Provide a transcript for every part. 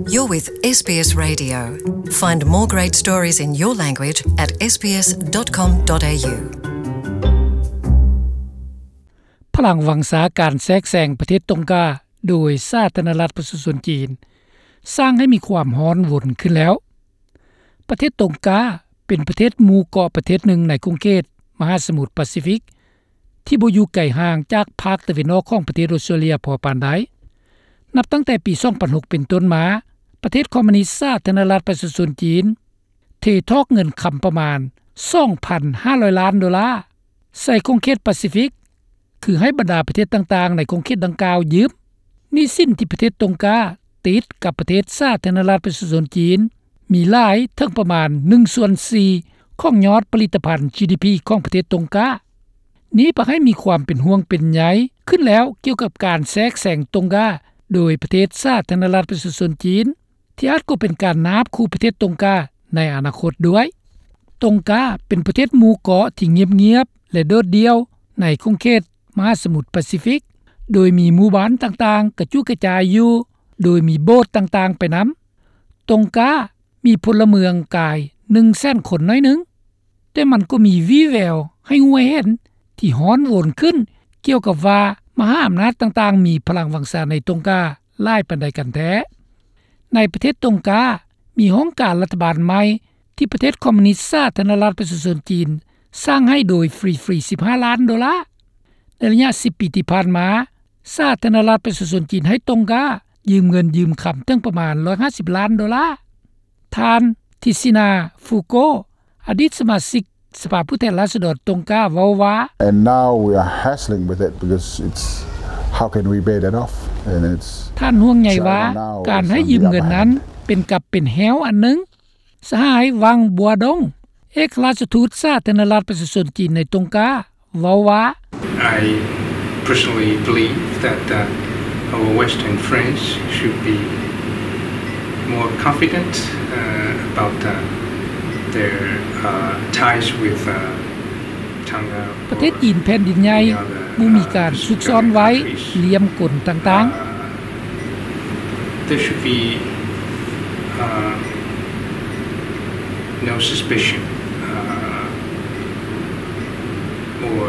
You're with SBS Radio. Find more great stories in your language at sbs.com.au. ພະລັງວັງຊາການແຊກແຊງປະເທດຕົງກາໂດຍສາທາລະນະລັດປະຊາຊົນຈີນ ສ້າງໃຫ້ມີຄວາມຮ້ອນວົນຂຶ້ນແລ້ວ. ປະເທດຕົງກາເປັນປະເທດໝູ່ເກາະປະເທດໜຶ່ງໃນຂົງເຂດມະຫາສະໝຸດປາຊີຟິກ ທີ່ບໍ່ຢູ່ໄກຫ່າງຈາກພາກຕາເວັນອອກຂອງປະເທດອອສເຕຣເລັຍພໍປານໃດ. ນັບຕັ້ງແຕ່ປີສອງພັນຫົກເປັນຕົ້ນມາ, ປະເທດຄອມມູນິດສາທາລະນະລັດປະຊາຊົນຈີນ ເທຖອກເງິນຄຳປະມານສອງພັນຫ້າຮ້ອຍລ້ານໂດລາ ໃສ່ຂົງເຂດປາຊີຟິກ ຄືໃຫ້ບັນດາປະເທດຕ່າງໆໃນຂົງເຂດດັ່ງກ່າວຢືມ. ໜີ້ສິນທີ່ປະເທດຕົງກາຕິດກັບປະເທດສາທາລະນະລັດປະຊາຊົນຈີນ ມີຫຼາຍເຖິງປະມານໜຶ່ງສ່ວນສີ່ຂອງຍອດຜະລິດຕະພັນ ຈີດີພີ ຂອງປະເທດຕົງກາ. ນີ້ພາໃຫ້ມີຄວາມເປັນຫ່ວງເປັນໃຍຂຶ້ນແລ້ວກ່ຽວກັບການແຊກແຊງຕົງກາໂດຍປະເທດສາທາລະນະລັດປະຊາຊົນຈີນ ທີ່ອາດກໍເປັນການນາບຂູ່ປະເທດຕົງກາໃນອະນາຄົດດ້ວຍ. ຕົງກາເປັນປະເທດໝູ່ເກາະທີ່ງຽບໆ ແລະ ໂດດດ່ຽວໃນຂົງເຂດມະຫາສະໝຸດປາຊີຟິກ, ໂດຍມີໝູ່ບ້ານຕ່າງໆກະຈຸກະຈາຍຢູ່, ໂດຍມີໂບດຕ່າງໆໄປນຳ. ຕົງກາມີພົນລະເມືອງກາຍໜຶ່ງແສນຄົນໜ້ອຍໜຶ່ງ, ແຕ່ມັນກໍມີວີ່ແວວໃຫ້ຮູ້ໃຫ້ເຫັນທີ່ຮ້ອນວົນຂຶ້ນ ກ່ຽວກັບວ່າມະຫາອຳນາດຕ່າງໆມີພະລັງວັງຊາໃນຕົງກາຫຼາຍປານໃດກັນແທ້. ໃນປະເທດຕົງກາ ມີຫ້ອງການລັດຖະບານໃໝ່ທີ່ປະເທດຄອມມູນິດສາທາລະນະລັດປະຊາຊົນຈີນສ້າງໃຫ້ໂດຍຟຣີໆ ສິບຫ້າລ້ານໂດລາ. ໃນໄລຍະສິບປີທີ່ຜ່ານມາ, ສາທາລະນະລັດປະຊາຊົນຈີນໃຫ້ຕົງກາຢືມເງິນຢືມຄຳເຖິງປະມານຮ້ອຍຫ້າສິບລ້ານໂດລາ. ທ່ານ ທິຊິນາ ຟູໂກ ອະດີດສະມາຊິກສະພາຜູ້ແທນລາຊະດອນຕົງກາເວົ້າວ່າ And now we are hassling with it because it's, how can we pay that off? And it's ທ່ານຫ່ວງໃຍວ່າ China now ການໃຫ້ຢືມເງິນນັ້ນ on the other hand ເປັນກັບເປັນແຮ້ວອັນໜຶ່ງ. ສະຫາຍ ວັງ ບົວດົງ ເອກອັກຄະລັດທູດສາທາລະນະລັດປະຊາຊົນຈີນໃນຕົງກາ ເວົ້າວ່າ I personally believe that, uh, our Western friends should be more confident, uh, about, uh, their, uh, ties with, uh, Tonga ປະເທດຈີນແຜ່ນດິນໃຫຍ່ ບໍ່ມີການຊຸກຊ້ອນໄວ້ ລ່ຽມກົນຕ່າງໆ. Uh, there should be, uh, no suspicion, uh, or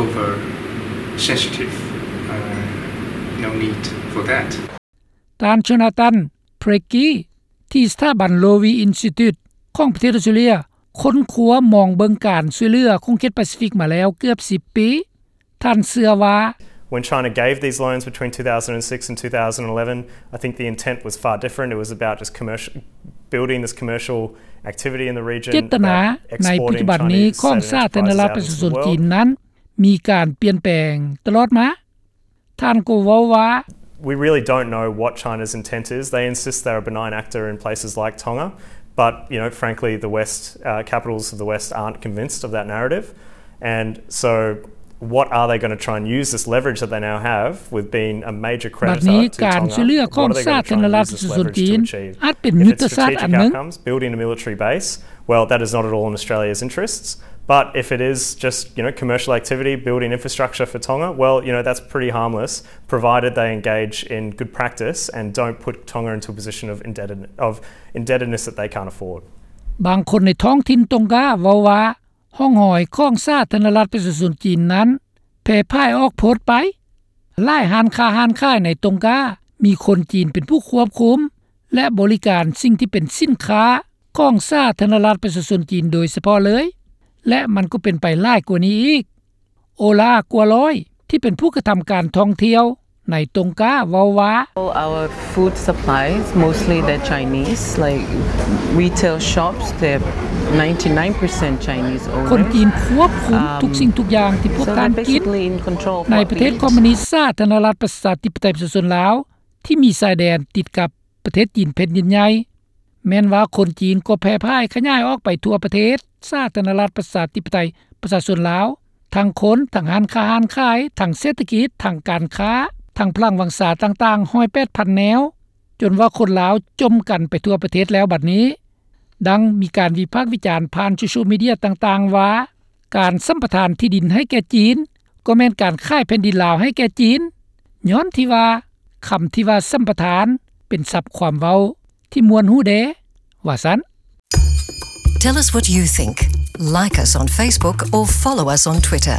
over sensitive, uh, no need for that. ທ່ານ ໂຈນາຕັນ ເພຣກກີ ທີ່ສະຖາບັນ Lowy Institute ຂອງປະເທດອອສເຕຣເລັຍ ຄົ້ນຄວ້າມອງເບິ່ງການຊ່ວຍເຫຼືອຂົງເຂດປາຊີຟິກມາແລ້ວເກືອບສິບປີ. ທ່ານເຊື່ອວ່າ When China gave these loans between two thousand and six and two thousand and eleven, I think the intent was far different. It was about just commercial, building this commercial activity in the region, ເຈດຕະນາໃນປັດຈຸບັນນີ້ຂອງສາທາລະນະລັດປະຊາຊົນຈີນນັ້ນ ມີການປ່ຽນແປງຕະຫຼອດມາ. ທ່ານກໍເວົ້າວ່າ We really don't know what China's intent is. They insist they're a benign actor in places like Tonga, but, you know, frankly, the West, uh, capitals of the West aren't convinced of that narrative. And so what are they gonna try and use this leverage that they now have with being a major creditor to Tonga? ບັດນີ້ການຊ່ວຍເຫຼືອຂອງສາທາລະນະລັດປະຊາຊົນຈີນ ອາດເປັນຍຸດທະສາດອັນໜຶ່ງ. If it's strategic outcomes, building a military base, well, that is not at all in Australia's interests. But if it is just, you know, commercial activity, building infrastructure for Tonga, well, you know, that's pretty harmless, provided they engage in good practice and don't put Tonga into a position of indebted-, of indebtedness that they can't afford. ບາງຄົນໃນທ້ອງຖິ່ນຕົງກາເວົ້າວ່າ ຮ່ອງຮອຍຂອງສາທາລະນະລັດປະຊາຊົນຈີນນັ້ນແຜ່ພາຍອອກໂພດໄປ. ຫຼາຍຮ້ານຄ້າຮ້ານຂາຍໃນຕົງກາມີຄົນຈີນເປັນຜູ້ຄວບຄຸມ ແລະ ບໍລິການສິ່ງທີ່ເປັນສິນຄ້າຂອງສາທາລະນະລັດປະຊາຊົນຈີນໂດຍສະເພາະເລີຍ ແລະ ມັນກໍເປັນໄປຫຼາຍກວ່ານີ້ອີກ. ໂອລາ ກົວລອຍ ທີ່ເປັນຜູ້ກະທຳການທ່ອງທ່ຽວໃນຕົງກາເວົ້າວ່າ All our food supplies, mostly they're Chinese, like retail shops, they're ninety-nine percent Chinese owned. ຄົນຈີນຄວບຄຸມທຸກສິ່ງທຸກຢ່າງທີ່ພວກທ່ານກິນ. ໃນປະເທດຄອມມູນິດສາທາລະນະລັດປະຊາທິປະໄຕປະຊາຊົນລາວ ທີ່ມີຊາຍແດນຕິດກັບປະເທດຈີນແຜ່ນດິນໃຫຍ່ ແມ່ນວ່າຄົນຈີນກໍແຜ່ພາຍຂະຫຍາຍອອກໄປທົ່ວປະເທດສາທາລະນະລັດປະຊາທິປະໄຕປະຊາຊົນລາວ, ທັງຄົນ, ທັງຮ້ານຄ້າຮ້ານຂາຍ, ທັງເສດຖະກິດ, ທັງການຄ້າ, ທັງພະລັງວັງຊາຕ່າງໆ ຮ້ອຍແປດພັນແນວ, ຈົນວ່າຄົນລາວຈົມກັນໄປທົ່ວປະເທດແລ້ວບັດນີ້. ດັ່ງມີການວິພາກວິຈານຜ່ານໂຊຊຽວມີເດຍຕ່າງໆວ່າ ການສຳປະທານທີ່ດິນໃຫ້ແກ່ຈີນ ກໍແມ່ນການຂາຍແຜ່ນດິນລາວໃຫ້ແກ່ຈີນ, ຍ້ອນທີ່ວ່າຄຳທີ່ວ່າສຳປະທານ ເປັນສັບຄວາມເວົ້າທີ່ມ່ວນຫູແດ່ ວ່າຊັ້ນ. Tell us what you think. Like us on Facebook or follow us on Twitter.